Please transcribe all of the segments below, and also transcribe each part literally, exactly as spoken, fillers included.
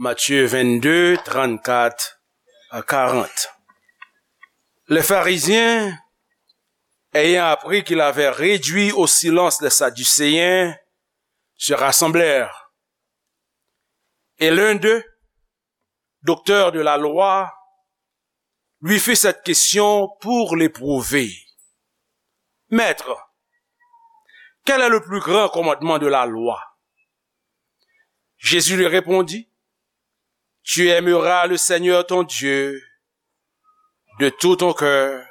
Matthieu vingt-deux, trente-quatre à quarante. Les pharisiens, ayant appris qu'il avait réduit au silence les Sadducéens, se rassemblèrent. Et l'un d'eux, docteur de la loi, lui fit cette question pour l'éprouver. Maître, quel est le plus grand commandement de la loi? Jésus lui répondit, tu aimeras le Seigneur ton Dieu de tout ton cœur,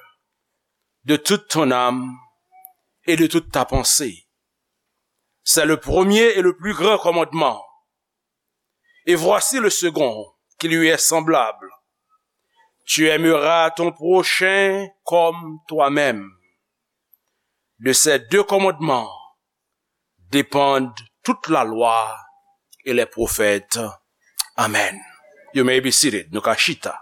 de toute ton âme et de toute ta pensée. C'est le premier et le plus grand commandement. Et voici le second, qui lui est semblable. Tu aimeras ton prochain comme toi-même. De ces deux commandements dépendent toute la loi et les prophètes. Amen. You may be seated. Nou ka chita.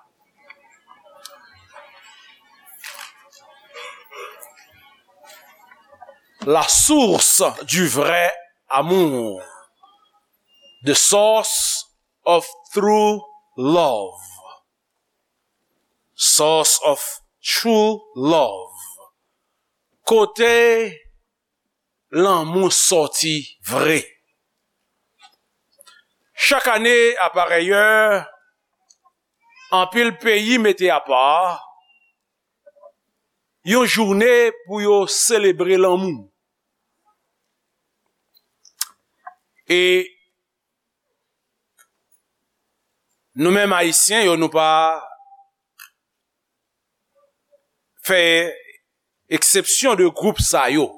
La source du vrai amour. The source of true love. Source of true love. Kote lanmou sòti vre. Chak ane, a parèy è, anpil peyi mete apa yon jounen pou yo selebre lanmou. E nou menm Ayisyen yo, nou pa fè eksepsyon de gwoup sa yo.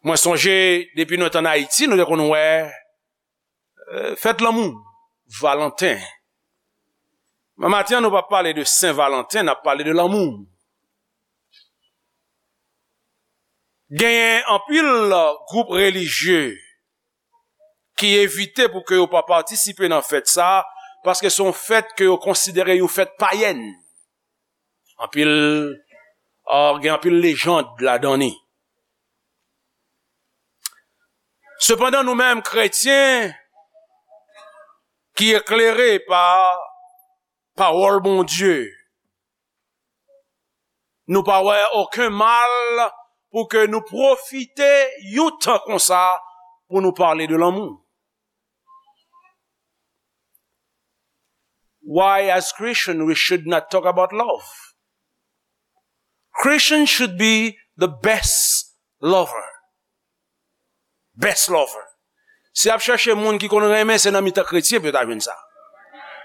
Mwen sonje, depi nou t ann Ayiti, nou te konn wè, eh, fèt lanmou, Valanten. Men maten an, nou p ap pale de Sen Valanten, n ap pale de lanmou. Genyen anpil gwoup relijye ki evite pou ke yo pa patisipe nan fèt sa a, paske se yon fèt ke yo konsidere yon fèt payèn. Anpil, ah, gen anpil lejand ladan li. Sepandan, nou menm kretyen ki eklere pa pawòl Bondye, nou pa wè okenn mal pou ke nou pwofite yon tan konsa pou nou pale de lanmou. Why, as Christian, we should not talk about love? Christian should be the best lover. Best lover. Si w ap chèche moun ki konn renmen, se nan mitan kretyen pou w ta jwenn sa.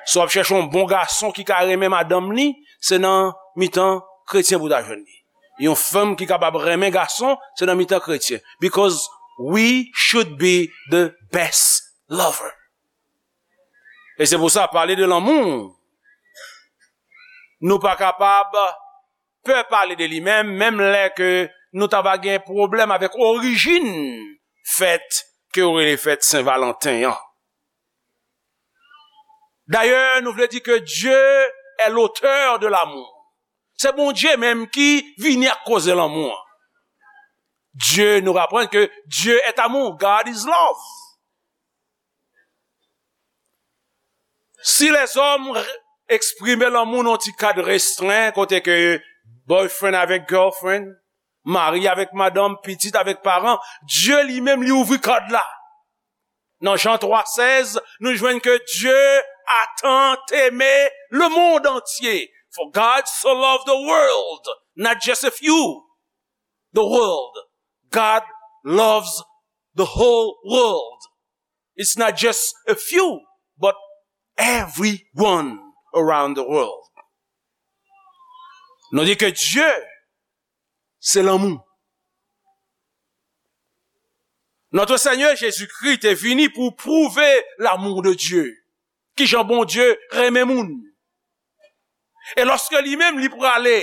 Si w ap chèche yon bon gason ki ka renmen madanm li, se nan mitan kretyen pou w ta jwenn li. Yon fanm ki kapab renmen gason, se nan mitan kretyen. Because we should be the best lover. E se pou sa, pale de lanmou, nou pa kapab pè pale de li menm, menm lè ke nou ta va gen pwoblèm avèk orijin fèt ke yo rele fèt Sen Valanten an. Dayè, nou vle di ke Dieu est l'auteur de l'amour. Se Bondye menm ki vini ak koze lanmou an. Dieu, nou aprann ke Dieu est amour, God is love. Si lèzòm r-, eksprime lanmou nan yon ti kad restren, kote ke boyfriend avèk girlfriend, mari avèk madanm, pitit avèk paran, Dye li menm li ouvri kad la. Nan Jan twa sèz, nou jwenn ke Dieu a tant aimé le monde entier. For God so loved the world, not just a few. The world. God loves the whole world. It's not just a few, but everyone around the world. Nou di ke Dye se lanmou. Notre Seigneur Jésus-Christ te vini pou pwouve lanmou de Dye. Kijan Bondye renmen moun. E lòske li menm li prale,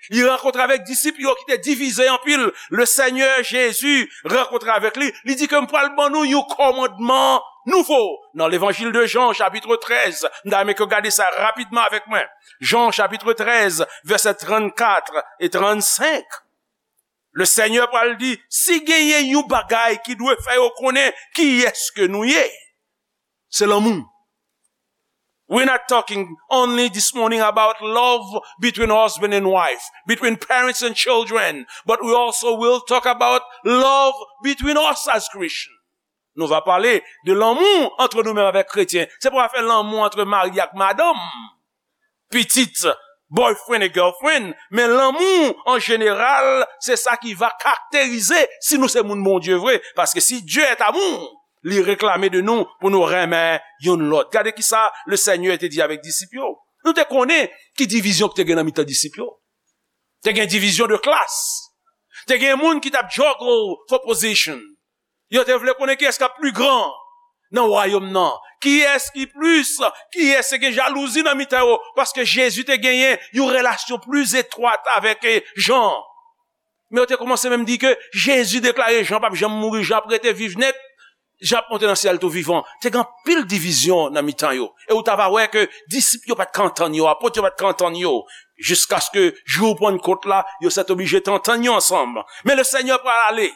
li rankontre avèk disip yo ki te divize anpil, le Seigneur Jésus rankontre avèk li, li di ke m pral ban nou yon kòmandman nouvo. Nan levanjil de Jan, chapitre treize, m ta renmen ke w gade sa rapidman avèk mwen. Jan, chapitre treize, vèsè trannkat e trannsenk. Le Seigneur pral di, si genyen yon bagay ki dwe fè yo konnen kiyès ke nou ye, Se lanmou. We're not talking only this morning about love between husband and wife, between parents and children, but we also will talk about love between us as Christians. Nou va pale de lanmou antre nou menm avèk kretyen. Se pa afè lanmou antre mari ak madanm, pitit, boyfriend e girlfriend, men lanmou an jeneral, se sa ki va karakterize si nou se moun Bondye vre. Paske si Dieu est amour, li reklame de nou pou nou renmen youn lòt. Gade ki sa le Senyè te di avèk disip yo. Nou te konnen ki divizyon ki te gen nan mitan disip yo. Te gen divizyon de klas. Te gen moun ki t ap juggle for position. Yo te vle konnen kiyès k ap pli gran nan wayòm nan. Kiyès ki plis, kiyès te gen jalouzi nan mitan yo, paske Jezi te genyen yon relasyon pli etwat avèk, eh, Jan. Men yo te kòmanse menm di ke Jezi deklare Jan p ap janm mouri, Jan ap rete viv nèt, Jan ap monte nan syèl tou vivan. Te gen anpil divizyon nan mitan yo. E ou ta va wè ke disip yo pa t ka antann yo, apot yo pa t ka antann yo, jiskaske jou Pannkot la, yo sètoblije te antann yo ansanm. Men le Senyè pral ale.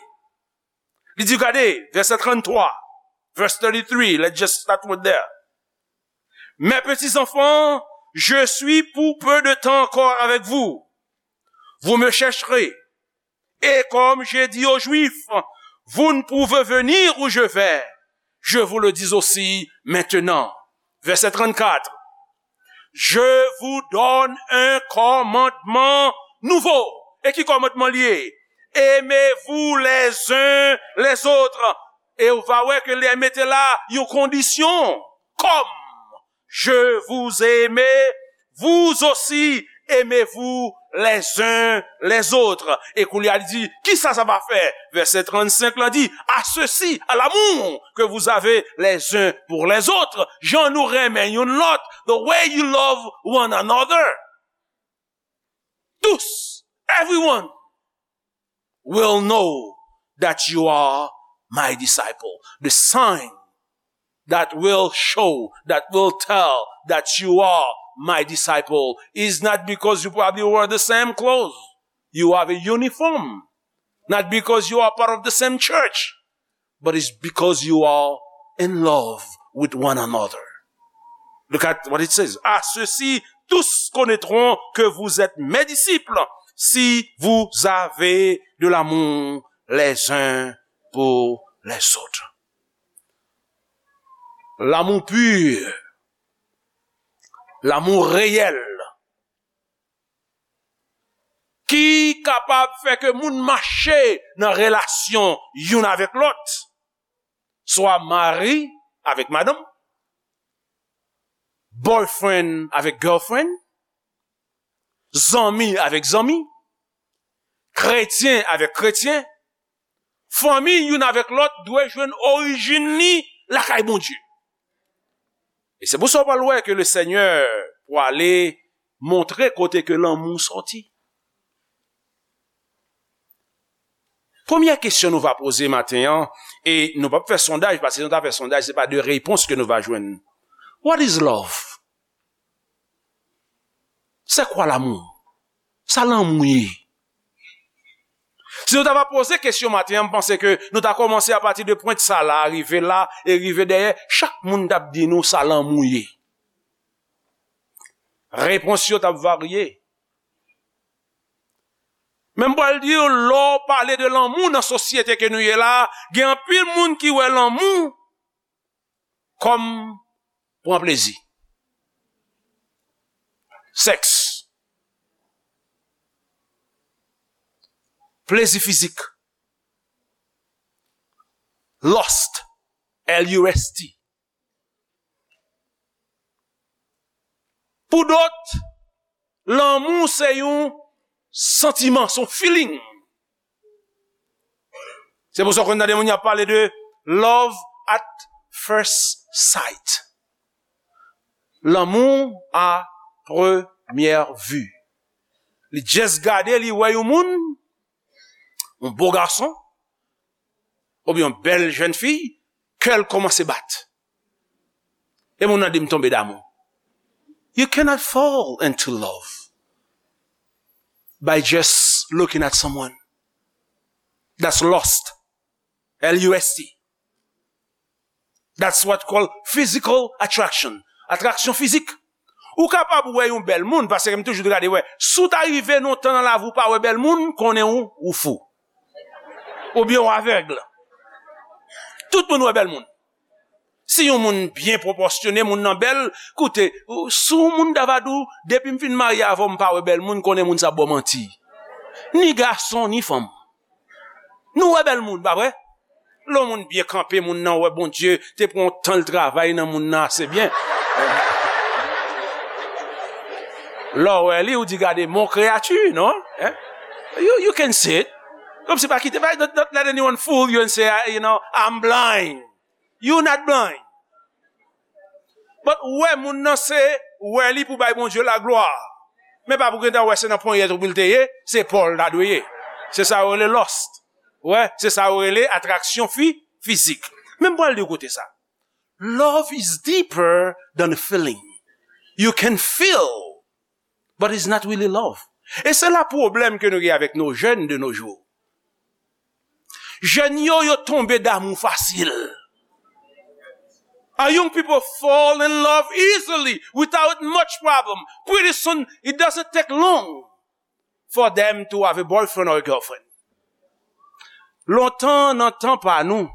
Li di, gade, vèsè tranntwa, verse thirty-three, let's just start with there. Mes petits enfants, je suis pour peu de temps encore avec vous. Vous me chercherez. Et comme j'ai dit aux Juifs, vous ne pouvez venir où je vais. Je vous le dis aussi maintenant. Verset trente-quatre. Je vous donne un commandement nouveau. E ki kòmandman li ye? Aimez-vous les uns les autres. E ou va wè ke li mete la yon kondisyon. Comme je vous aime, vous aussi aimez-vous les uns les autres. E kounye a li di, ki sa sa va fè? Vèsè trannsenk la di, à ceci, à l'amour que vous avez les uns pour les autres. Jan nou renmen youn lòt, the way you love one another. Tous, everyone will know that you are my disciple. The sign that will show, that will tell that you are my disciple is not because you probably wear the same clothes, you have a uniform, not because you are part of the same church, but it's because you are in love with one another. Look at what it says. À ceux-ci, tous connaîtront que vous êtes mes disciples si vous avez de l'amour les uns pour les autres. L'amour pur, l'amour réel, ki kapab fè ke moun mache nan relasyon youn avèk lòt, swa mari avèk madanm, boyfriend avèk girlfriend, zanmi avèk zanmi, kretyen avèk kretyen, fanmi youn avèk lòt dwe jwenn orijin li lakay Bondye. E se pou sa w pral wè ke le Senyè pwale montre kote ke lanmou sòti. Premyè kesyon nou va poze maten an, e nou p ap fè sondaj, paske si nou ta fè sondaj, se pa de repons ke nou va jwenn. What is love? C'est quoi l'amour? Sa lanmou ye? Si nou ta va poze kesyon maten an, m panse ke nou ta kòmanse apati de pwent sa la, rive la, e rive dèyè, chak moun t ap di nou sa lanmou ye. Repons yo t ap varye. Men m pral di w, lè w pale de lanmou nan sosyete ke nou ye la, gen anpil moun ki wè lanmou kòm pran plezi. Sèks. Plezi fizik. Lust. L U S T. Pou dòt, lanmou se yon santiman, se yon feeling. Se pou sa w konn tande moun y ap pale de love at first sight. Lanmou a premyè vi. Li just gade, li wè yon moun, yon bo gason, oubyen yon bèl jèn fi, kè l kòmanse bat. E moun nan di m tonbe damou. You cannot fall into love by just looking at someone. That's lust. L U S T. That's what called physical attraction. Atraksyon fizik. Ou kapab wè yon bèl moun, paske m toujou gade wè. Si w ta rive nan tan nan lavi w pa wè bèl moun, konnen ou, ou fou. Oubyen w avèg. Tout moun wè bèl moun. Si yon moun byen pwopòsyone, moun nan bèl, koute, si yon moun ta va di w, depi m fin marye avè w, m pa wè bèl moun, konnen moun sa ap ba w manti. Ni gason, ni fanm. Nou wè bèl moun, pa vre? Lè yon moun byen kanpe, moun nan wè Bondye te pran yon tan l travay nan moun nan ase byen. Lè w wè li, ou di, "Gade, mon kreyati, non?" Hein? You, you can see it. Kòmsi pa kite, pa, don't, don't let anyone fool you and say, "I, you know, I'm blind." You not blind. But wè moun nan se wè li pou bay Bondye laglwa. Men pa pou gentan wè se nan ponyèt ou pou l te ye, se pa w l ta dwe ye. Se sa yo rele lust. Wè, se sa yo rele atraksyon fi, fizik. Men m pral di w kote sa. Love is deeper than a feeling. You can feel, but it's not really love. E se la pwoblèm ke nou gen avèk nos jeunes de nos jours. Jèn yo, yo tonbe damou fasil. Our young people fall in love easily without much problem. Pretty soon, it doesn't take long for them to have a boyfriend or a girlfriend. Lontan, nan tan pa nou,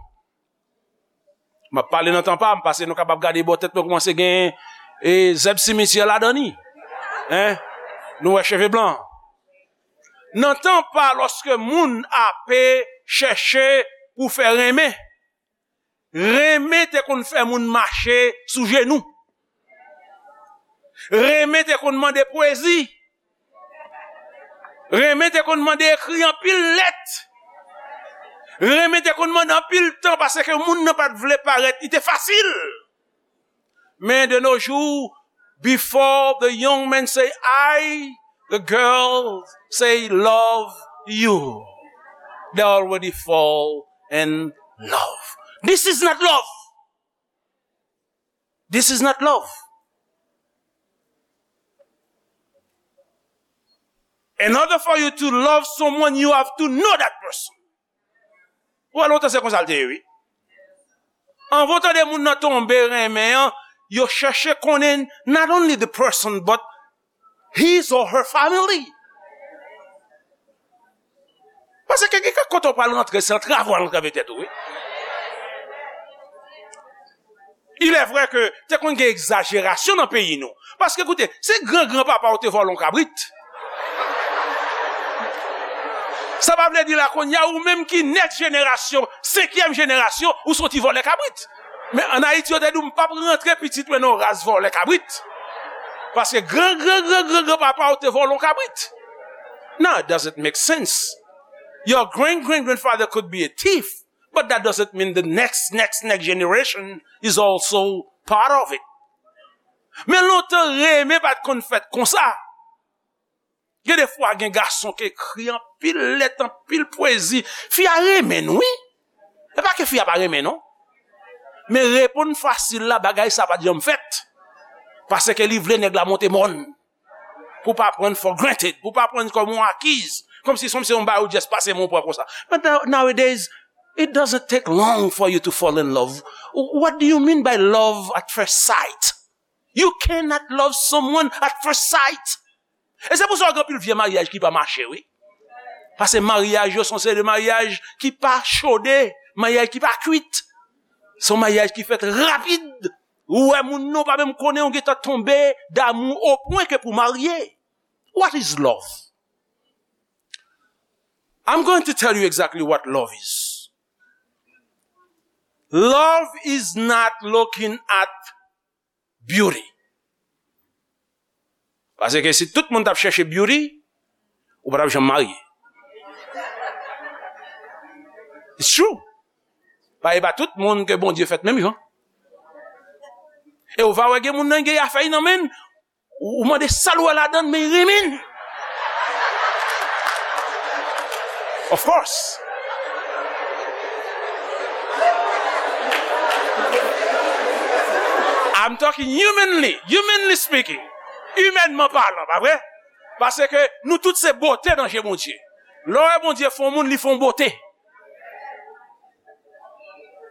m ap pale nan tan pa m, paske nou kapab gade bò tèt mwen kòmanse gen, e, zèb simityè ladan li. Hein? Nou wè cheve blan. Nan tan pa, lòske moun ape chèche pou fè renmen, renmen te konn fè moun mache sou jenou. Renmen te konn mande pwezi. Renmen te konn mande ekri anpil lèt. Renmen te konn mande anpil tan paske moun nan pa t vle parèt, li te fasil. Men de nos jours, before the young men say I, the girl say love you, they already fall in love. This is not love. This is not love. In order for you to love someone, you have to know that person. Ou wè lontan se konsa l te ye, wi. Anvan w tande moun nan tonbe renmen an, yo chèche konnen not only the person, but his or her family. Paske gen kèk kote w pral rantre, se antrave w al antrave tèt ou, wi. Il est vrai que te konn gen egzajerasyon nan peyi nou. Paske, koute, se gran gran papa w te vòlè yon kabrit. Sa pa vle di la kounye a, ou menm ki next jenerasyon, senkyèm jenerasyon, ou se yon ti vòlè kabrit. Men ann Ayiti, yo te di w, "M p ap rantre pitit mwen nan yon ras vòlè kabrit." Paske gran gran gran gran gran papa w te vòlè yon kabrit. Now, it doesn't make sense. Your great great grandfather could be a thief, but that doesn't mean the next next next generation is also part of it. Men lontan, renmen pa t konn fèt konsa. Gen de fwa, gen gason ki ekri anpil lèt, anpil pwezi. Fi a renmen l, wi. E pa ke fi a pa renmen l, non. Men reponn fasil la, bagay sa pa t janm fèt. Paske li vle nèg la monte mòn. Pou pa pran for granted, pou pa pran kòm yon akiz. Kòmsi, kòmsi se yon bagay ou just pase men w pran konsa. But now, nowadays, it doesn't take long for you to fall in love. What do you mean by love at first sight? You cannot love someone at first sight. E se pou sa w gen anpil vye maryaj ki pa mache, wi. Paske maryaj yo se yon seri de maryaj ki pa chode, maryaj ki pa kwit. Se yon maryaj ki fèt rapid. Ou wè moun nan w pa menm konnen, ou gentan tonbe damou o pwen ke pou marye. What is love? I'm going to tell you exactly what love is. Love is not looking at beauty. Paske si tout moun t ap chèche beauty, ou pa t ap janm marye. It's true. Pa, e pa tout moun ke Bondye fèt menm jan. E ou va wè gen moun nan gen afè nan men l, ou, ou mande sa l wè ladan l, men l renmen l. Of course. I'm talking humanly, humanly speaking. Imènman palan, pa vre? Paske nou tout se bote nan je Bondye. Lè w wè Bondye fè yon moun, li fè yon bote.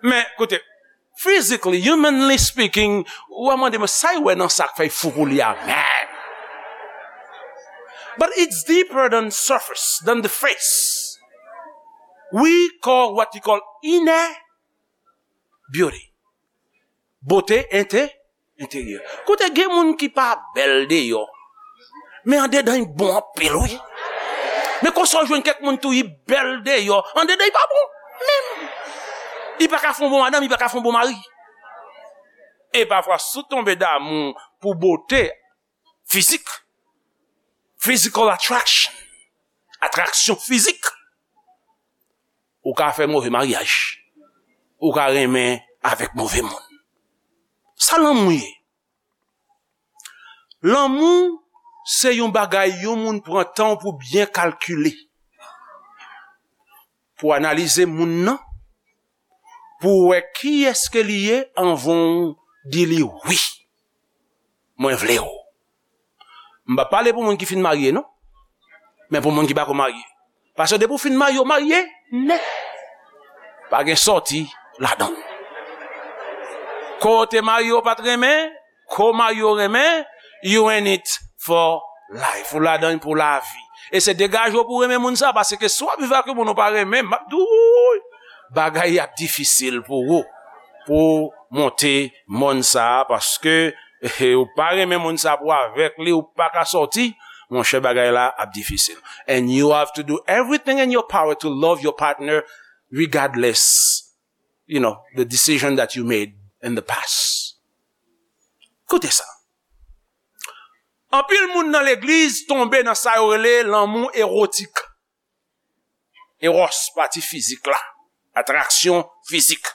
Men, koute, Physically, humanly speaking, ou a mande mwen sa y wè nan sa k fè y fou pou li a, man. But it's deeper than surface, than the face. We call what you call inner beauty. Bote ente, enteryè. Koute, gen moun ki pa bèl deyò, men andedan y bon anpil, wi. Men konsa w jwenn kèk moun tou, y bèl deyò, andedan y pa bon menm. Y pa ka fè yon bon madanm, y pa ka fè yon bon mari. E pafwa, si w tonbe damou pou bote fizik, physical attraction, atraksyon fizik, ou ka fè move maryaj. Ou ka renmen avèk move moun. Sa lanmou ye? Lanmou se yon bagay yon moun pran tan pou byen kalkile, pou analize moun nan, pou wè kiyès ke li ye anvan w di li wi. Mwen vle w. M pa pale pou moun ki fin marye, non. Men pou moun ki pako marye. Paske depi w fin marye, w marye nèt. Pa gen sòti ladan l. Kote marye w pa t renmen, ko marye w renmen, you in it for life. Ou ladan l pou lavi. E se degaje w pou w renmen moun sa, paske si w ap viv ak yon moun ou pa renmen, m ap di w, bagay ap difisil pou ou, pou w monte mòn sa, paske ou pa renmen moun sa pou avèk li, ou pa ka sòti, monchè, bagay la ap difisil. And you have to do everything in your power to love your partner regardless, you know, the decision that you made in the past. Koute sa. Anpil moun nan legliz tonbe nan sa yo rele lanmou ewotik. Eros, pati fizik la. Atraksyon fizik.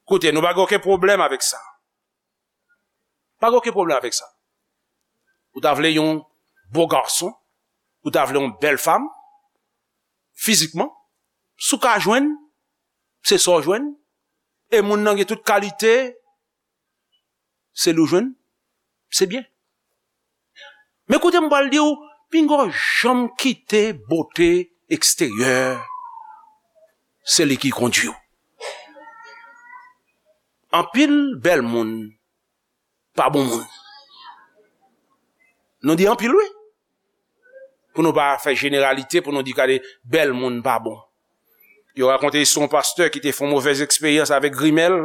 Koute, nou pa gen okenn pwoblèm avèk sa. Pa gen okenn pwoblèm avèk sa. Ou ta vle yon bo gason, ou ta vle yon bèl fanm, fizikman, si w ka jwenn, se sa w jwenn, e moun nan gen tout kalite, se li w jwenn, se byen. Men koute m pral di w, pinga w janm kite bote eksteryè, se li ki kondui w. Anpil bèl moun pa bon moun. Nou di anpil, wi. Pou nou pa fè jeneralite, pou nou di gade bèl moun pa bon. Yo rakonte istwa yon pastè ki te fè yon movèz eksperyans avèk grimèl.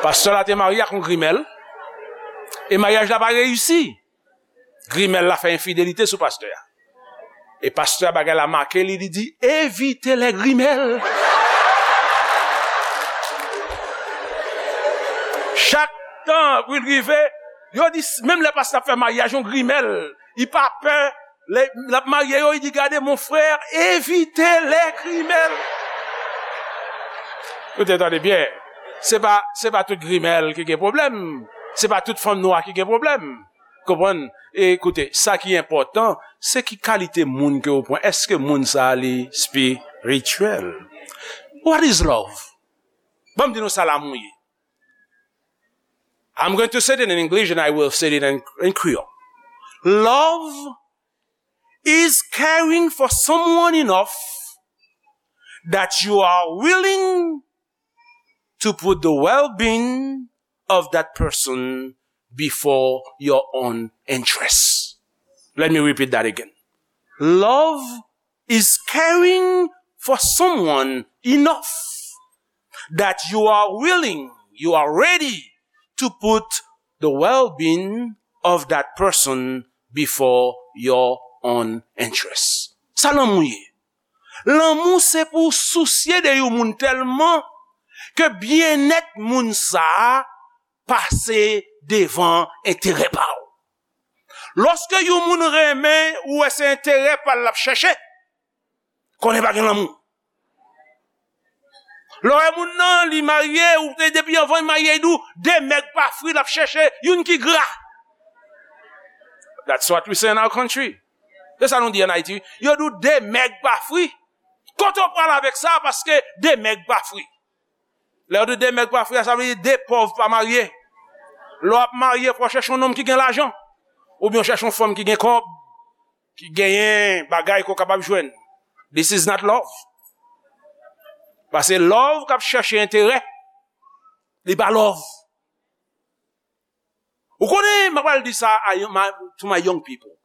Pastè la te marye ak yon grimèl. E maryaj la pa reyisi. Grimèl la fè enfidelite sou pastè a. E pastè a, bagay la make li, li di, "Evite lè grimèl." Chak tan pou l rive, yo di, menm lè pastè ap fè maryaj, yon grimèl, li pa pè, lè l ap marye yo, li di, "Gade, mon frè, evite lè grimèl." Ou te tande byen. Se pa, se pa tout grimèl ki gen pwoblèm. Se pa tout fanm nwa ki gen pwoblèm. Konprann? E koute, sa ki enpòtan, se ki kalite moun ke w pran. Èske moun sa a li espirityèl? What is love? Ban m di nou sa lanmou ye. I'm going to say it in English and I will say it in, in Creole. Love is caring for someone enough that you are willing to put the well-being of that person before your own interests. Let me repeat that again. Love is caring for someone enough that you are willing, you are ready to put the well-being of that person before your own interests. Sa lanmou ye. Lanmou se pou w sousye de yon moun tèlman ke byennèt moun sa a pase devan enterè pa w. Lòske yon moun renmen, ou wè se enterè pa l l ap chèche, konnen pa gen lanmou. Lè w wè moun nan, li marye, ou te depi anvan l marye, li di w, de mèg pa fri l ap chèche, youn ki gra. That's what we say in our country. Se sa nou di ann Ayiti, wi. Yo di w de mèg pa fri. Kote w pral avèk sa, paske de mèg pa fri. Lè yo di de mèg pa fri a, sa vle di de pòv pa marye. Lè w ap marye, fò w chèche yon nonm ki gen lajan. Oubyen w chèche yon fanm ki gen kòb, ki genyen bagay ke w kapab jwenn. This is not love. Paske love k ap chèche enterè, li pa love. Ou konnen, m ap pral di sa a, my, to my young people.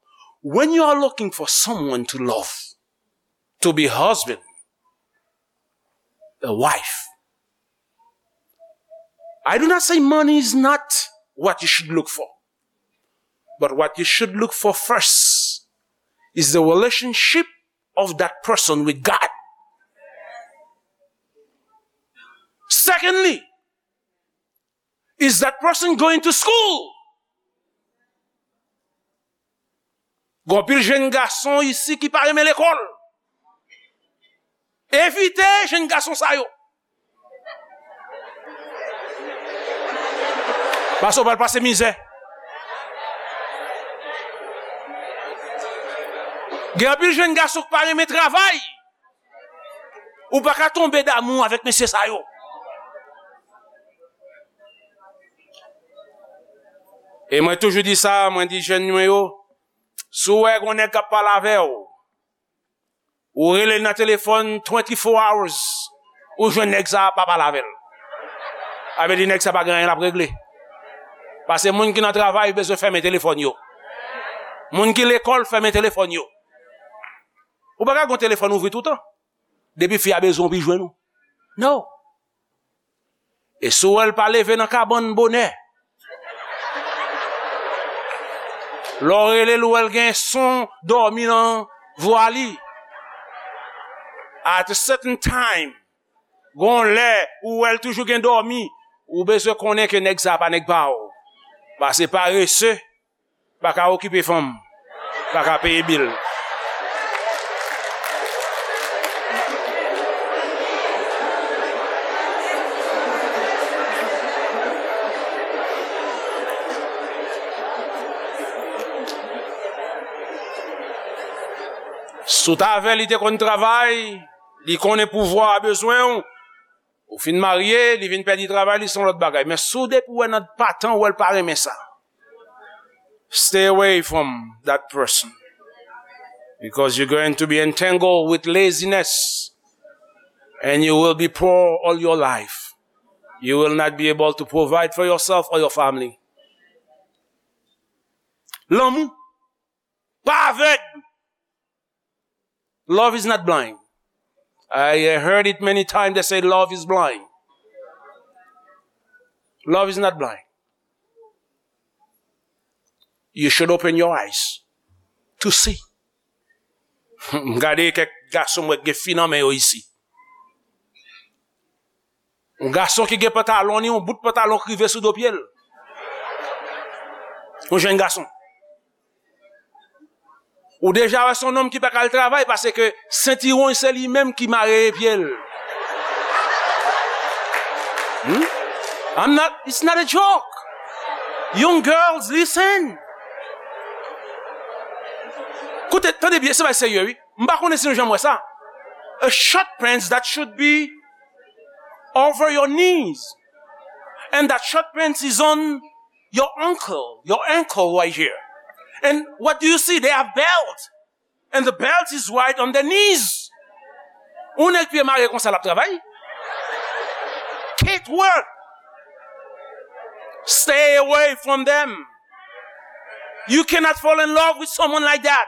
When you are looking for someone to love, to be husband, a wife, I do not say money is not what you should look for. But what you should look for first is the relationship of that person with God. Secondly, is that person going to school? Gon pil jèn gason isi ki pa renmen lekòl. Evite jèn gason sa yo. Paske w pral pase mizè. Gen anpil jèn gason ki pa renmen travay. Ou pa ka tonbe damou avèk mesye sa yo. E mwen toujou di sa, mwen di jèn mwen yo, si w wè gon nèg k ap pale avè w, ou rele l nan telefòn twenty-four hours, ou jwenn nèg sa a pa pale avè l. Sa vle di nèg sa pa gen anyen l ap regle. Paske moun ki nan travay bezwen fèmen telefòn yo. Moun ki lekòl fèmen telefòn yo. Ou pa ka gen telefòn ouvri toutan. Depi fi a bezwen w, pi jwenn ou. No. E si w wè l pa leve nan kabann bonè, lè w rele l, ou wè l gen son dòmi nan vwa li. At a certain time, gon lè, ou wè l toujou gen dòmi, ou bezwen konnen ke nèg sa a pa nèg pa w. Paske parese pa ka okipe fanm, pa ka peye bil. Si w t avè l, li te konn travay, li konnen pouvwa a bezwen w, ou fin marye, li vin pèdi travay, li se yon lòt bagay. Men si w depi w wè nan patan, w wè l pa renmen sa, stay away from that person. Because you're going to be entangled with laziness. And you will be poor all your life. You will not be able to provide for yourself or your family. Lanmou. Pa avèg. Love is not blind. I heard it many times, they say love is blind. Love is not blind. You should open your eyes to see. M gade kèk gason m wè gen fi nan men yo isi. Yon gason ki gen pantalon li, yon bout pantalon k rive sou do pye l. Yon jèn gason. Ou deja wè se yon nonm ki pa ka al travay paske sentiwon se li menm ki mare pye l. Hmm? I'm not, it's not a joke. Young girls, listen. Koute, tande byen, se bagay serye, wi. M pa konnen si nou janm wè sa. A short pants that should be over your knees. And that short pants is on your ankle, your ankle right here. And what do you see? They have belt. And the belt is right on their knees. Ou nèg pye mare konsa l ap travay. Can't work. Stay away from them. You cannot fall in love with someone like that.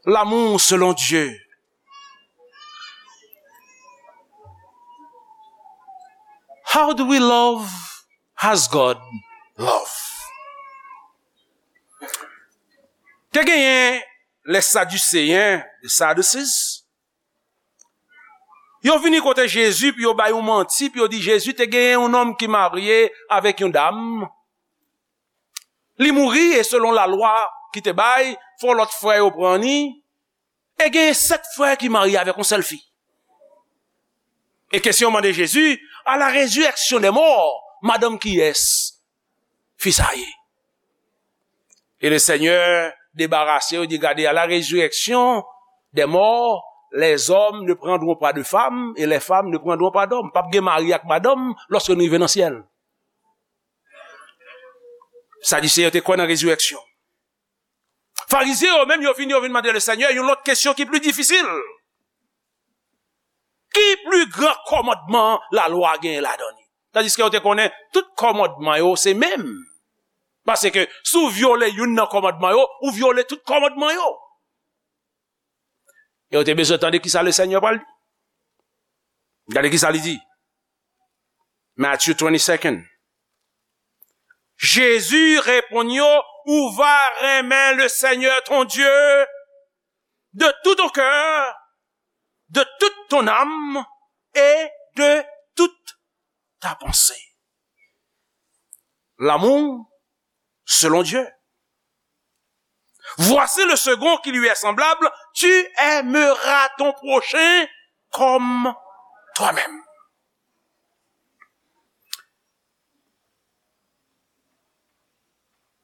L'amour selon Dieu. How do we love as God love? Te genyen les Sadducéens, the Sadducees, yo vini kote Jezi, pou yo bay yon manti, pou yo di Jezi te genyen yon nonm ki marye avèk yon dam. Li mouri, e selon lalwa ki te bay, fò lòt frè yo pran li. E genyen sèt frè ki marye avèk yon sèl fi. E kesyon mande Jezi, à la résurrection des morts, madanm kiyès fi sa ye? E le Seigneur debarase yo, di, gade, à la résurrection des morts, les hommes ne prendront pas de femmes et les femmes ne prendront pas d'hommes. P ap gen mari ak madanm lòske nou rive nan syèl. Sadise yo te kwè nan rezirèksyon. Farizyen yo menm, yo vin, yo vin mande le Senyè yon lòt kesyon ki pli difisil. Ki pli gran kòmandman lalwa genyen ladan li? Tandiske yo te konnen tout kòmandman yo se menm. Paske si w vyole youn nan kòmandman yo, ou vyole tout kòmandman yo. E yo te bezwen tande kisa le Senyè pral di. Gade kisa li di. Matthew twenty-second. Jezi reponn yo, ou va renmen le Senyè ton Dye de tout ton cœur, de toute ton âme et de toute ta pensée. L'amour selon Dieu. Voici le second qui lui est semblable, tu aimeras ton prochain comme toi-même.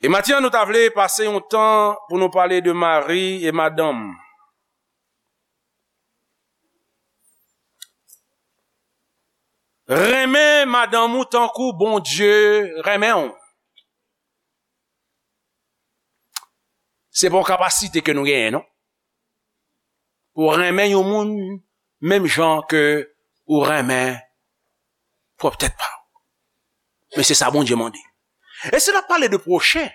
E maten an, nou ta vle pase yon tan pou nou pale de mari e madanm. Renmen madanm ou tankou Bondye renmen w. Se pa yon kapasite ke nou genyen, non. Pou w renmen yon moun menm jan ke ou renmen pwòp tèt pa w. Men se sa Bondye mande. E si n ap pale de pwochen,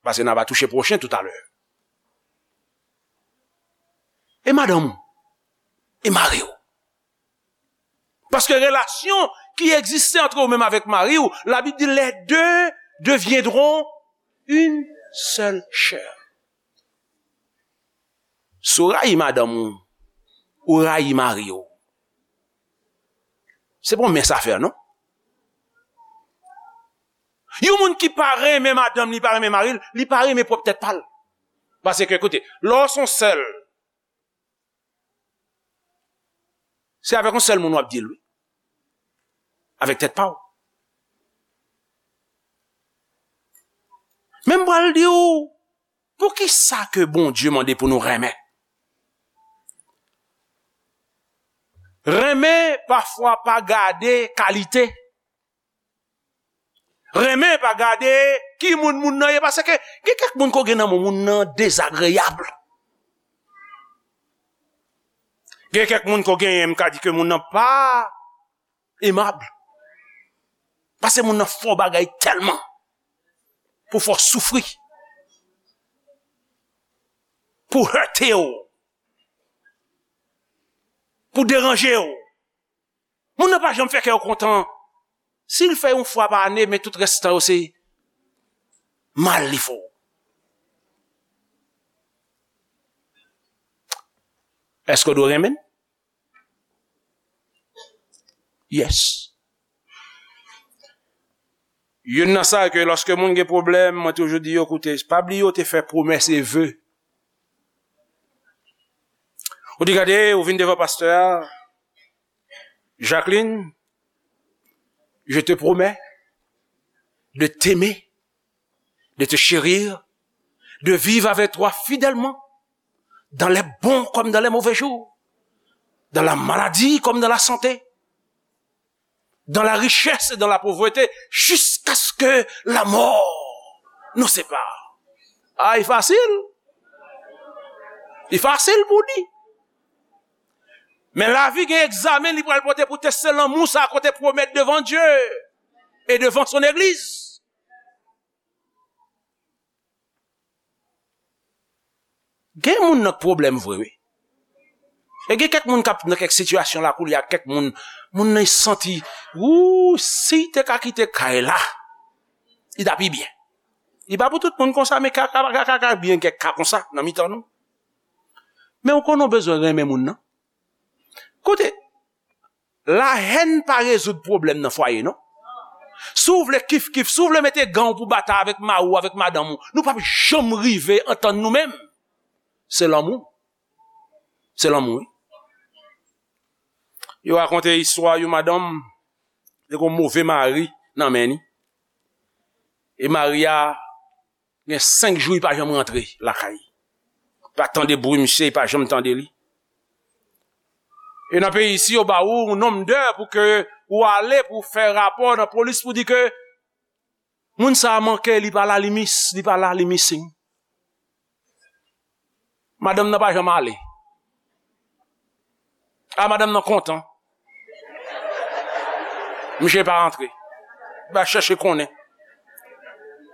paske n a va touche pwochen toutalè. E madanm ou? E mari w? Paske relasyon ki egziste antre ou menm avèk mari w, Labib di, les deux deviendront une seule chair. Si w rayi madanm ou, ou rayi mari w. Se pa yon mens afè, non? Yon moun ki pa renmen madanm li, pa renmen mari l, li pa renmen pwòp tèt pa l. Paske, koute, lè w se yon sèl, se avèk yon sèl moun w ap di l, wi. Avèk tèt pa w. Men m pral di w, poukisa ke Bondye mande pou nou renmen? Renmen, pafwa, pa gade kalite. Renmen pa gade ki moun moun nan ye, paske gen kèk moun ko gen nan moun, moun nan dezagreyab. Gen kèk moun ko genyen, m ka di ke moun nan pa emab. Paske moun nan fè w bagay tèlman pou fè w soufri, pou hète w, pou deranje w. Moun nan pa janm fè kè w kontan. Si l fè yon fwa pa ane, men tout rès tan yo se mal li fè w. Èske w dwe renmen l? Yes. Youn nan sa ke lòske moun gen pwoblèm, mwen toujou di yo, koute, pa bliye w te fè pwomès e ve. Ou di, gade, ou vin devan pastè a, Jacqueline, je te promets de t'aimer, de te chérir, de vivre avec toi fidèlement, dans les bons comme dans les mauvais jours, dans la maladie comme dans la santé, dans la richesse et dans la pauvreté, jusqu'à ce que la mort nous sépare. Ah, e fasil. E fasil pou di. Men lavi gen egzamen li pral pote pou teste lanmou sa ke w te pwomèt devan Dye e devan son egliz. Gen moun nan k pwoblèm vre, wi. E gen kèk moun k ap nan kèk sitiyasyon la koulye a, kèk moun, moun nan santi, wou, si l te ka kite kay la, li ta pi byen. Li pa pou tout moun konsa, men ka, ka, ka, ka, ka byen kèk ka konsa nan mitan nou. Men ou konnen w bezwen renmen moun nan. Koute, lahèn pa rezoud pwoblèm nan fwaye, non. Si w vle kif kif, si w vle mete gan w pou batay avèk mari w, avèk madanm ou, nou p ap janm rive antann nou menm. Se lanmou. Se lanmou, wi. Yo rakonte istwa yon madanm, te gen yon move mari nan men li. E mari a gen senk jou li pa janm rantre lakay. Pa tande bri misye, li pa janm tande li. E nan peyi isi, yo ba ou yon nonm dè pou ke ou ale pou fè rapò nan polis pou di ke moun sa a manke, li pa la, li mis, li pa la, li missing. Madanm nan pa janm ale. A, madanm nan kontan. Misye pa rantre. Li pa chèche konnen.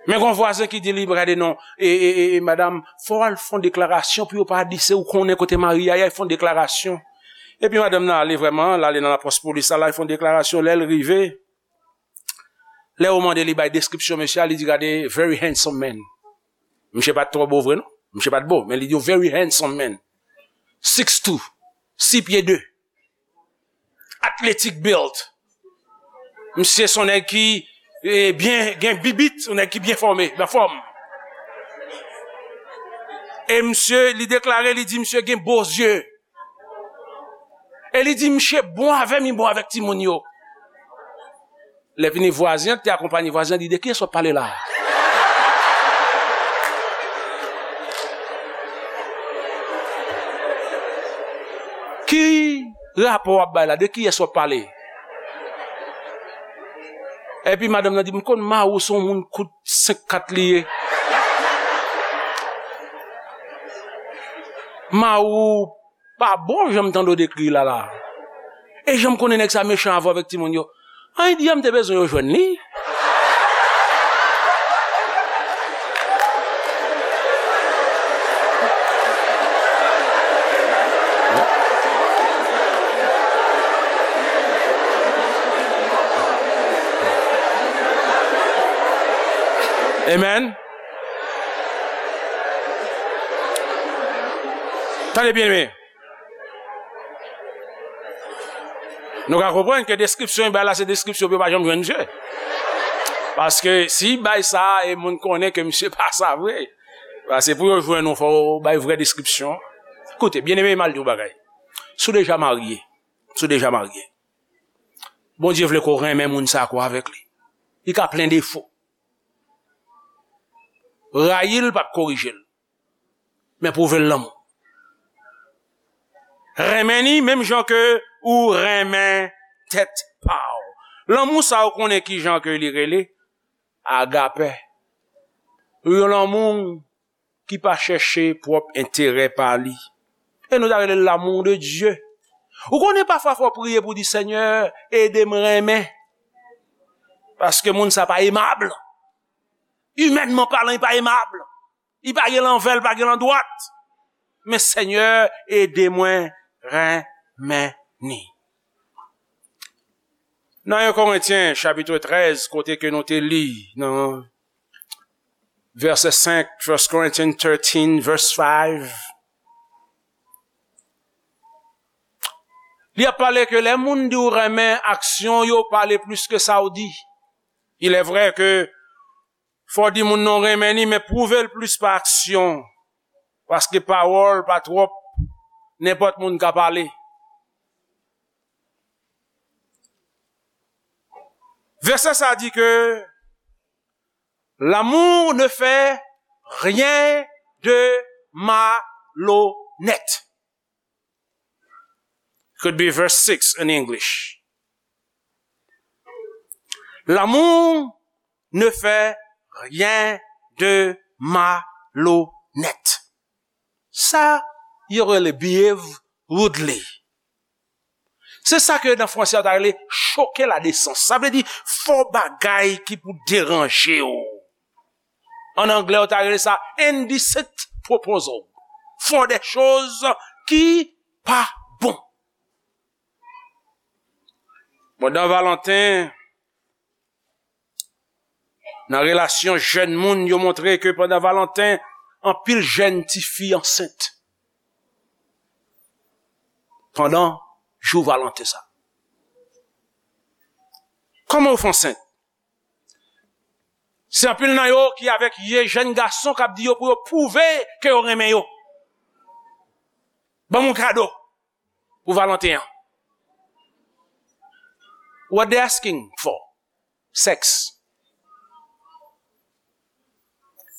Men gon vwazen ki di li, gade non, e, e, e, e, madanm, fò w al fè yon deklarasyon pou yo pa di se ou konnen kote mari a ye, al fè yon deklarasyon. Epi madanm nan ale vrèman, l ale nan lapòs polis la, l al fè yon deklarasyon. Lè l rive, lè yo mande li bay deskripsyon mesye a, li di, gade, very handsome man. Misye pa t twò bo vre non. Misye pa t bo, men li di, very handsome man. Six two, sis pye de. Athletic build. Misye se yon nèg ki, eh, byen, gen bibit, yon nèg ki byen fòme, anfòm. E misye, li deklare, li di misye gen bo zye. E li di misye bon avè m, li bon avèk timoun yo. Lè fini, vwazen an ki te akonpaye vwazen an di, de kiyès w ap pale la a? Ki rapò w ap bay la? De kiyès w ap pale? Epi madanm nan di, m konn mari w se yon moun kout senk kat li ye. Mari w pa bon jan m tande w dekri l la la. E jan m konnen nèg sa mechan avè w avèk timoun yo. An, li di a, m te bezwen yo jwenn li. Amen. Tande byen, men. Nou ka konprann ke deskripsyon li bay la, se deskripsyon pou yo pa janm jwenn misye. Paske si li bay sa, e moun konnen ke misye pa sa vre. Paske pou yo jwenn ou, fò w bay vrè deskripsyon. Koute, byeneme, m al di w bagay. Si w deja marye, si w deja marye, Bondye vle ke w renmen moun sa a, ke w avèk li. Li ka plen defo. Rayi l p ap korije l. Men pwouve l lanmou. Renmen li menm jan ke ou renmen tèt pa w. Lanmou sa a, ou konnen ki jan ke li rele? Agape. Yon lanmou ki pa chèche pwòp enterè pa li. E nou ta rele l l'amour de Dieu. Ou konnen pafwa fò w priye pou w di, Senyè, ede m renmen. Paske moun sa pa emab. Imènman palan, li pa emab. Li pa gen lanvè, li pa gen landwat. Men Senyè, ede mwen renmen li. Nan en Korentyen, chapit trèz, kote ke nou te li, nan vèsè senk, First Corinthians thirteen, verse five. Li ap pale ke lè moun di w renmen, aksyon yo pale plis ke sa w di. Il est vrai que fò w di moun nan w renmen li, men pwouve l plis pa aksyon. Paske pawòl pa twòp, nenpòt moun ka pale. Vèsè sa di ke l'amour ne fait rien de malhonnête. Could be verse six in English. L'amour ne fait rien de malhonnête. Sa yo rele behave rudely. Se sa ke nan fransè yo ta rele choke la desans. Sa vle di fè w bagay ki pou deranje w. An anglè, yo ta rele sa indecent proposal. Fè w de choz ki pa bon. Pandan Valanten, nan relasyon jèn moun, yo montre ke pandan Valanten, anpil jèn tifi ansent. Pandan jou Valanten sa. Kòman yo fè ansent? Se anpil nan yo ki avèk ye jèn gason k ap di yo pou yo pwouve ke yo renmen yo. Ban m yon kado pou Valanten an. What they asking for? Sex.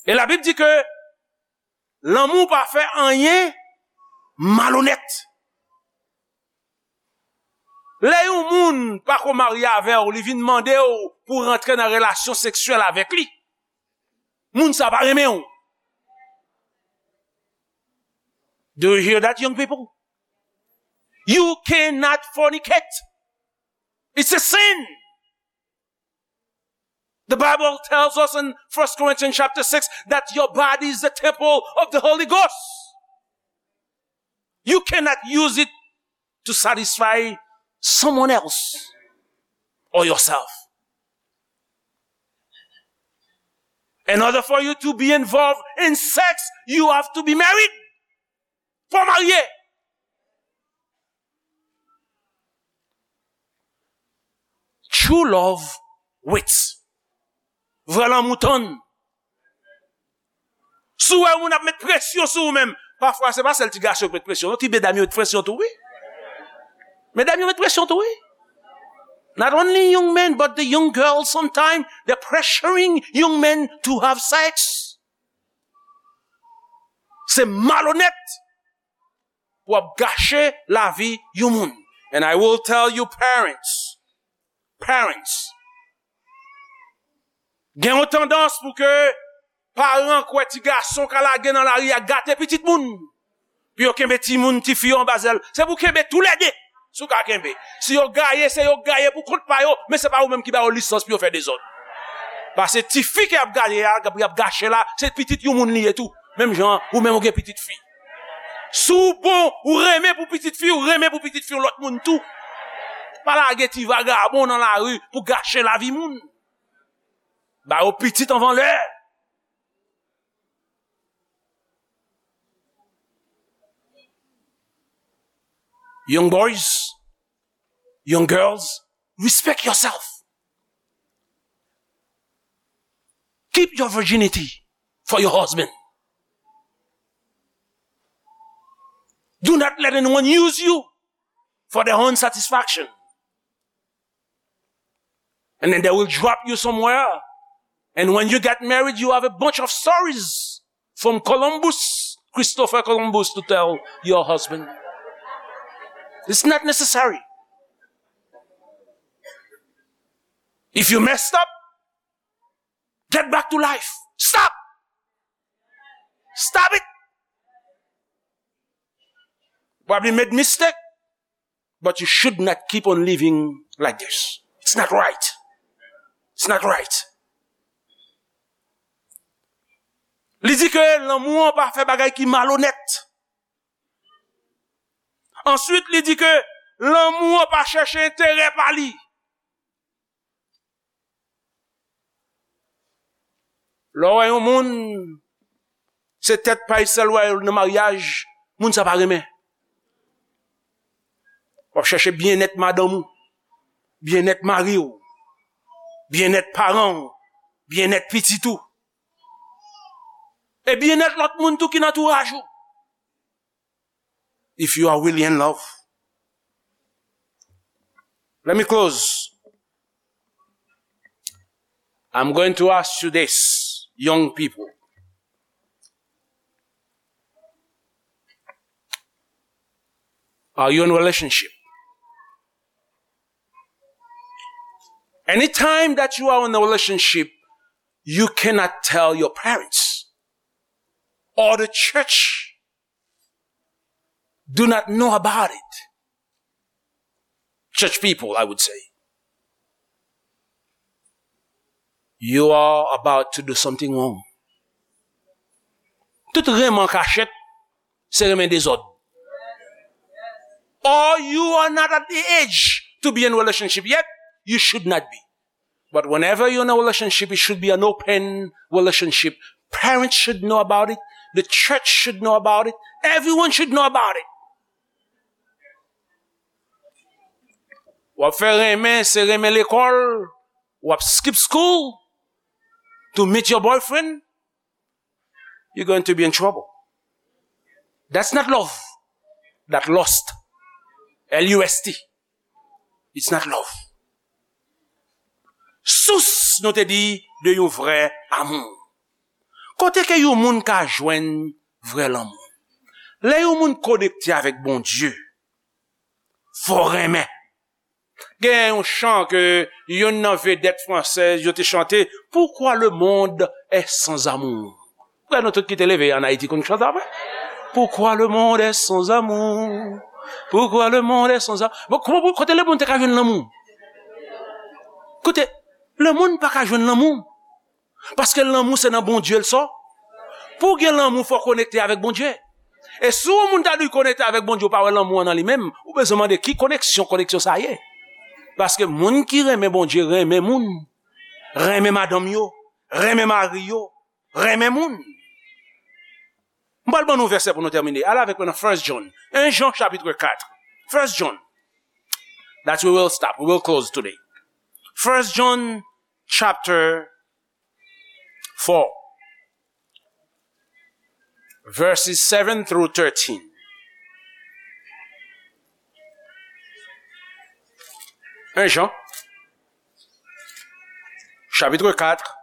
E Labib di ke lanmou pa fè anyen malonèt. Lè yon moun pa ko marye avè w, li vin mande w pou w rantre nan relasyon seksyèl avèk li, moun sa pa renmen w. Do you hear that, young people? You cannot fornicate. It's a sin. The Bible tells us in First Corinthians chapter six that your body is the temple of the Holy Ghost. You cannot use it to satisfy someone else or yourself. In order for you to be involved in sex, you have to be married. Fò w marye. True love waits. Vrè lanmou tann. Si w wè yon moun ap met presyon sou ou menm, pafwa se pa sèl ti gason yo k met presyon, non, ti medam yo met presyon tou, wi. Medam yo met presyon tou, wi. Not only young men, but the young girls sometimes, they're pressuring young men to have sex. Se malonèt pou ap gache lavi yon moun. And I will tell you, parents, parents, gen yon tandans pou ke paran kwè ti gason ka lage nan lari a gate pitit moun. Pou yo kenbe timoun, tifi yo anba zèl. Se pou kenbe toulède, si w ka kenbe. Si yo gaye, se yo gaye pou kont pa yo, men se pa ou menm ki ba yo lisans pou yo fè dezòd. Paske tifi ke y ap gaye a, y ap gache la, se pitit yon moun li ye tou. Menm jan, ou menm ou gen pitit fi. Si w bon, ou renmen pou pitit fi, ou renmen pou pitit fi yon lòt moun tou. Pa lage ti vagabon nan lari pou gache lavi moun. Ba yo pitit anvan lè. Young boys, young girls, respect yourself. Keep your virginity for your husband. Do not let anyone use you for their own satisfaction. And then they will drop you somewhere. And when you get married, you have a bunch of stories from Columbus, Christopher Columbus, to tell your husband. It's not necessary. If you messed up, get back to life. Stop. Stop it. Probably made mistake, but you should not keep on living like this. It's not right. It's not right. Li di ke lanmou an pa fè bagay ki malonèt. Answit, li di ke lanmou an pa chèche enterè pa li. Lè w wè yon moun, se tèt pa l sèl w wè nan maryaj, moun sa pa renmen. W ap chèche byennèt madanm ou, byennèt mari w, byennèt paran w, byennèt pitit ou. E byennèt lòt moun tou ki nan antouraj ou. If you are really in love. Let me close. I'm going to ask you this, young people. Are you in a relationship? Anytime that you are in a relationship, you cannot tell your parents or the church do not know about it. Church people, I would say. You are about to do something wrong. Tout renmen an kachèt, se renmen dezòd. Or you are not at the age to be in relationship yet, you should not be. But whenever you're in a relationship, it should be an open relationship. Parents should know about it. The church should know about it. Everyone should know about it. W ap fè renmen, se renmen lekòl. W ap skip school to meet your boyfriend. You're going to be in trouble. That's not love. That lust. L U S T. It's not love. Sous, nou te di, de yon vrè amou. Kote ke yon moun ka jwenn vrè lanmou? Lè yon moun konekte avèk Bondye, fò renmen. Gen yon chan ke youn nan vedèt fransèz yo te chante, Pourquoi le monde est sans amour. Frè nou tout ki te leve an Ayiti konn chante sa, vre? Pourquoi le monde est sans amour? Pourquoi le monde est sans amour? Bon, kòman pou, kote lemonn te ka jwenn lanmou? Kote, lemonn pa ka jwenn lanmou. Paske lanmou se nan Bondye l sò. Pou w gen lanmou, fò w konekte avèk Bondye. E si yon moun ta di l konekte avèk Bondye, ou pa wè lanmou an nan li menm, ou bezwen mande ki koneksyon, koneksyon sa ye. Paske moun ki renmen Bondye, renmen moun. Renmen madanm yo, renmen mari yo, renmen moun. M pral ban nou vèsè pou nou tèmine. Ale avèk mwen nan First John. En Jan chapit kat. First John. That we will stop. We will close today. First John chapter four. Verses seven through thirteen. En Jan, chapitre quatre.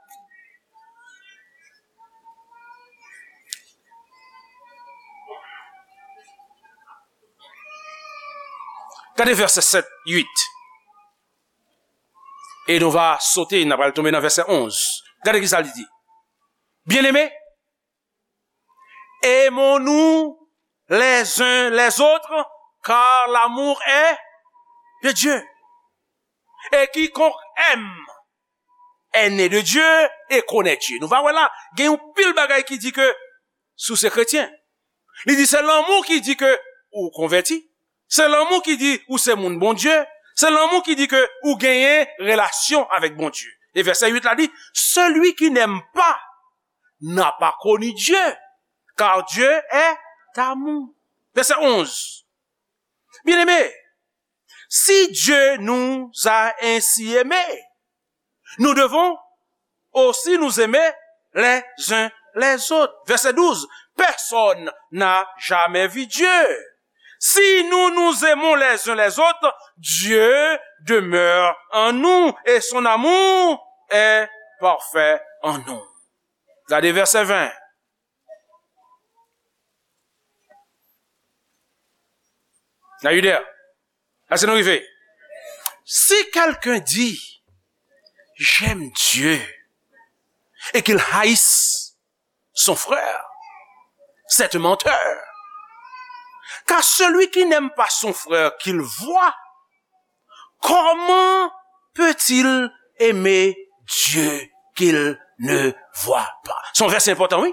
Gade vèsè sèt, uit. E nou va sote, n ap pral tonbe nan vèsè onz. Gade ki sa li di. Bien-aimés, aimons-nous les uns les autres, car l'amour est de Dieu. Et quiconque aime est né de Dieu et connaît Dieu. Nou va wè la, gen yon pil bagay ki di ke si w se kretyen. Li di se lanmou ki di ke ou konvèti. Se lanmou ki di ou se moun Bondye. Se lanmou ki di ke ou genyen relasyon avèk Bondye. E vèsè uit la di, celui qui n'aime pas n'a pas connu Dieu, car Dieu est amour. Vèsè onz. Bien-aimés, si Dieu nous a ainsi aimés, nous devons aussi nous aimer les uns les autres. Verset douze. Personne n'a jamais vu Dieu. Si nous nous aimons les uns les autres, Dieu demeure en nous et son amour est parfait en nous. Gade vèsè ven. Are you there? Èske nou rive? Si quelqu'un dit, j'aime Dieu, et qu'il haïsse son frère, c'est un menteur. Car celui qui n'aime pas son frère qu'il voit, comment peut-il aimer Dieu qu'il ne voit pas? Se yon vèsè enpòtan, wi.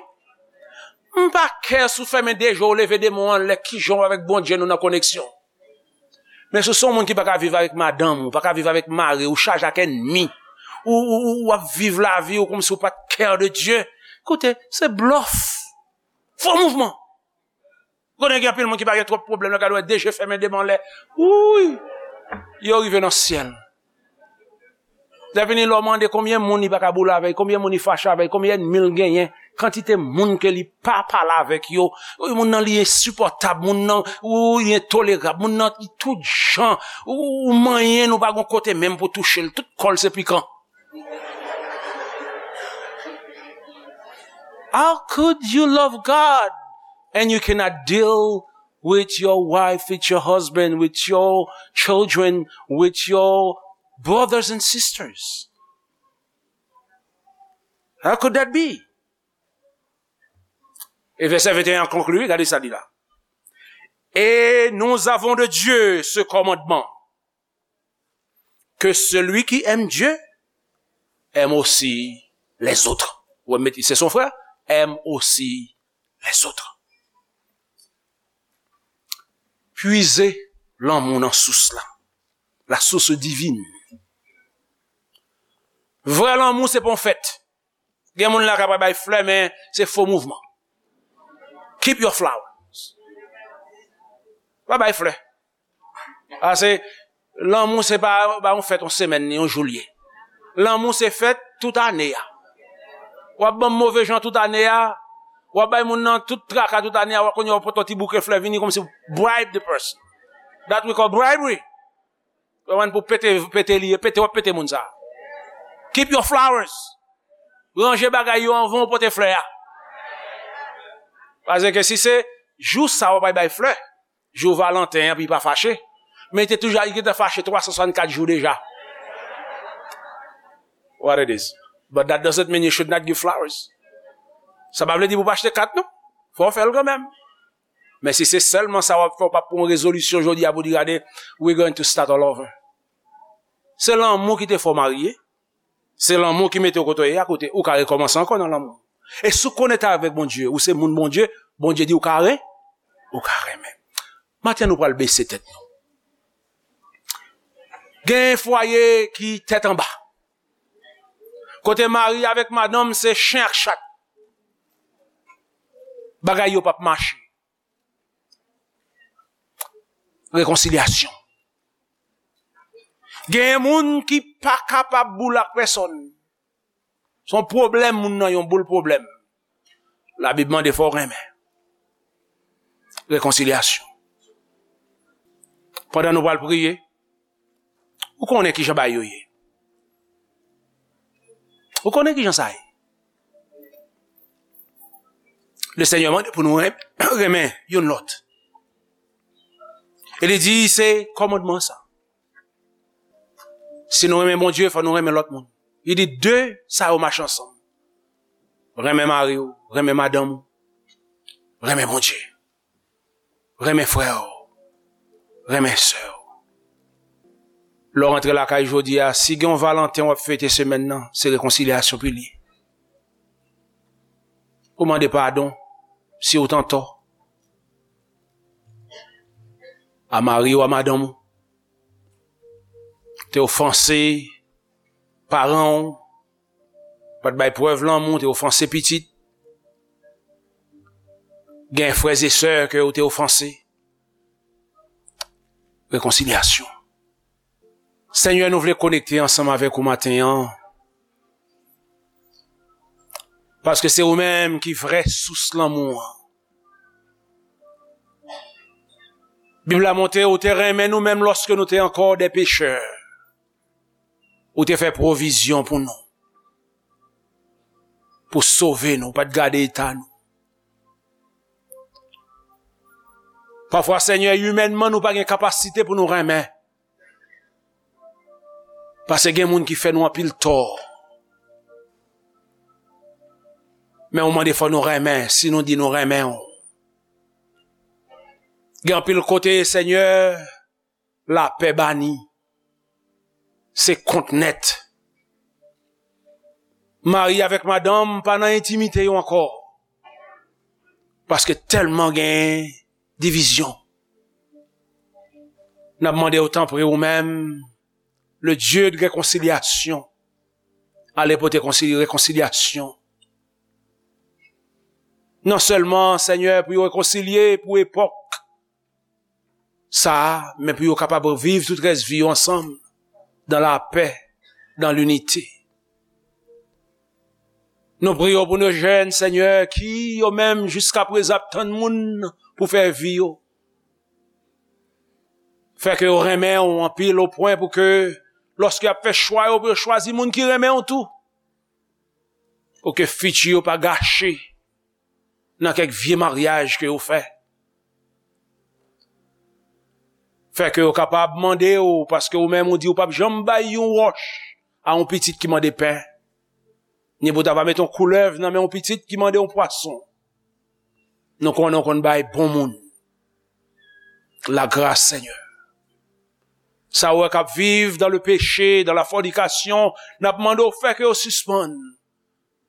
M pa kè si w fèmen de je w, leve de men w anlè, kijan w avèk Bondye nou nan koneksyon. Men si w se yon moun ki pa ka viv avèk madanm ou, pa ka viv avèk mari w, ou chaje ak ènmi, ou, ou, ou, w ap viv lavi w kòmsi w pa t care de Dieu, koute, se blòf. Fo mouvman. Konnen gen anpil moun ki pa gen twòp pwoblèm, lè gade wè de je fèmen de men anlè. Wouy! Yo rive nan syèl. Lè vini lè w mande konbyen moun li pa ka boule avèk, konbyen moun li fache avèk, konbyen ènmi l genyen, kantite moun ke li pa pale avèk yo. Wi, moun nan li ensipòtab, moun nan, wi, li entolerab, moun nan li tout jan. Ou, ou manyen l, ou pa gon kote menm pou touche l, tout kò l se pikan. How could you love God and you cannot deal with your wife, with your husband, with your children, with your brothers and sisters? How could that be? E vèsè venteyen an konkli, gade sa li la. Et nous avons de Dieu ce commandement, que celui qui aime Dieu aime aussi les autres. Ou wè, mete, c'est son frère, aime aussi les autres. Puize lanmou nan sous la. La source divine. Vrè lanmou se pa yon fèt. Gen moun la k ap bay flè, men se fo mouvman. Keep your flowers. Pa bay flè. Paske lanmou se pa, pa yon fèt yon semèn ni yon jou l ye. Lanmou se fèt tout ane a. W ap ban m move jan tout ane a. W ap bay moun nan tout traka tout ane a. W ap kounye a w ap pote yon ti bouke flè vini kòmsi w bribe the person. That we call bribery. Konprann, pou pete, pete li ye, pete, w ap pete moun sa. Keep your flowers. Ranje bagay yo anvan w pote flè a. Paske si se jou sa w ap bay flè, jou Valanten an, pou li pa fache. Men li te toujou, li gentan fache twa san swasannkat jou deja. What it is. But that doesn't mean you should not give flowers. Sa pa vle di pou pa achte kat, non. Fò w fè l kanmenm. Men si se sèlman sa w ap fè, w p ap pran yon rezolisyon jodi a pou di, "Gade, we're going to start all over." Se lanmou ki te fè w marye. Se lanmou ki mete w kote w ye a, kote ou ka rekòmanse ankò nan lanmou. E si w konekte avèk Bondye, ou se moun Bondye, Bondye di ou ka re-, ou ka renmen. Maten, nou pral bese tèt nou. Gen fwaye ki tèt anba. Kote mari avèk madanm se chen ak chat. Bagay yo p ap mache. Rekonsilyasyon. Gen moun ki pa kapab boule ak pèsòn. Se yon pwoblèm moun nan, yon boul pwoblèm. Labib mande fò w renmen. Rekonsilyasyon. Pandan nou pral priye, ou konnen kijan bagay yo ye. Ou konnen kijan sa ye. Lesenyè mande pou nou ren-, renmen youn lòt. E li di se kòmandman sa. Si nou renmen Bondye, fò nou renmen lòt moun. Li di de sa yo mache ansanm. Renmen mari w, renmen madanm ou, renmen Bondye. Renmen frè w, renmen sè w. Lè w rantre lakay jodi a, si gen yon Valanten w ap fete semèn nan, se rekonsilyasyon pou li. Ou mande padon si w t antò a mari w, a madanm ou. Te ofanse paran w, pa t bay prèv lanmou, te ofanse pitit. Gen frè e sè ke w te ofanse. Rekonsilyasyon. Senyè, nou vle konekte ansanm avèk ou maten an. Paske se ou menm ki vrè sous lanmou an. Bib la montre ou te renmen nou menm lòske nou te ankò de pechè. Ou te fè pwovizyon pou nou. Pou sove nou, ou pa t gade eta nou. Pafwa, Senyè, imènman, nou pa gen kapasite pou nou renmen. Paske gen moun ki fè nou anpil tò. Men ou mande fò nou renmen, si nou di nou renmen w. Gen anpil kote, Senyè, lapè bani. Se kont nèt. Mari avèk madanm pa nan entimite yo ankò. Paske tèlman gen divizyon. N ap mande w, tanpri, ou menm, le Dieu de réconciliation, ale pote konsi-, rekonsilyasyon. Non sèlman, Senyè, pou yo rekonsilye pou epòk sa a, men pou yo kapab viv tout rès vi yo ansanm, dans la paix, dans l'unité. Nou priye w pou nou jèn, Senyè, ki yo menm jiskaprezan ap tann moun pou fè vi yo. Fè ke yo renmen w anpil o pwen pou ke, lòske y ap fè chwa yo, pou yo chwazi moun ki renmen w tou. Pou ke fiti yo pa gache nan kèk vye maryaj ke yo fè. Fè ke yo kapab mande w, paske ou menm ou di ou p ap janm bay yon wòch a yon pitit ki mande pen, ni pou ta va mete yon koulèv nan men yon pitit ki mande yon pwason. Nou konnen w konn bay bon moun. Lagras, Senyè. Sa ou wè k ap viv dans le péché, dans la fornication, n ap mande w fè ke yo sispann.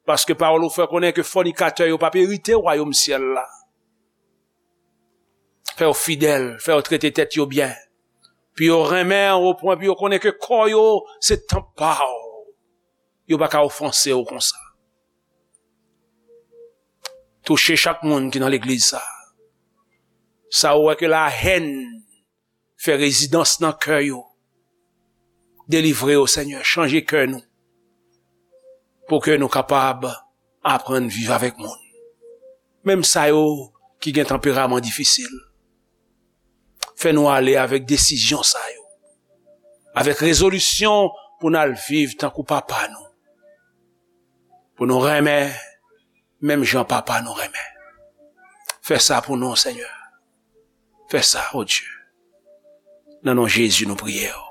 Paske pawòl ou fè konnen ke fònikatè yo p ap erite wayòm syèl la. Fè yo fidèl, fè yo trete tèt yo byen. Pou yo renmen w o pwen pou yo konnen ke kò yo se tanp pa w. Yo pa ka ofanse w konsa. Touche chak moun ki nan legliz sa. Sa ou wè ke lahèn fè rezidans nan kè yo. Delivre yo, Senyè, chanje kè nou. Pou ke nou kapab aprann viv avèk moun. Menm sa yo ki gen tanperaman difisil. Fè nou ale avèk desizyon sa yo. Avèk rezolisyon pou n al viv tankou papa nou. Pou nou renmen, menm jan papa nou renmen. Fè sa pou nou, Senyè. Fè sa, o Dye. Nan non Jezi nou priye w.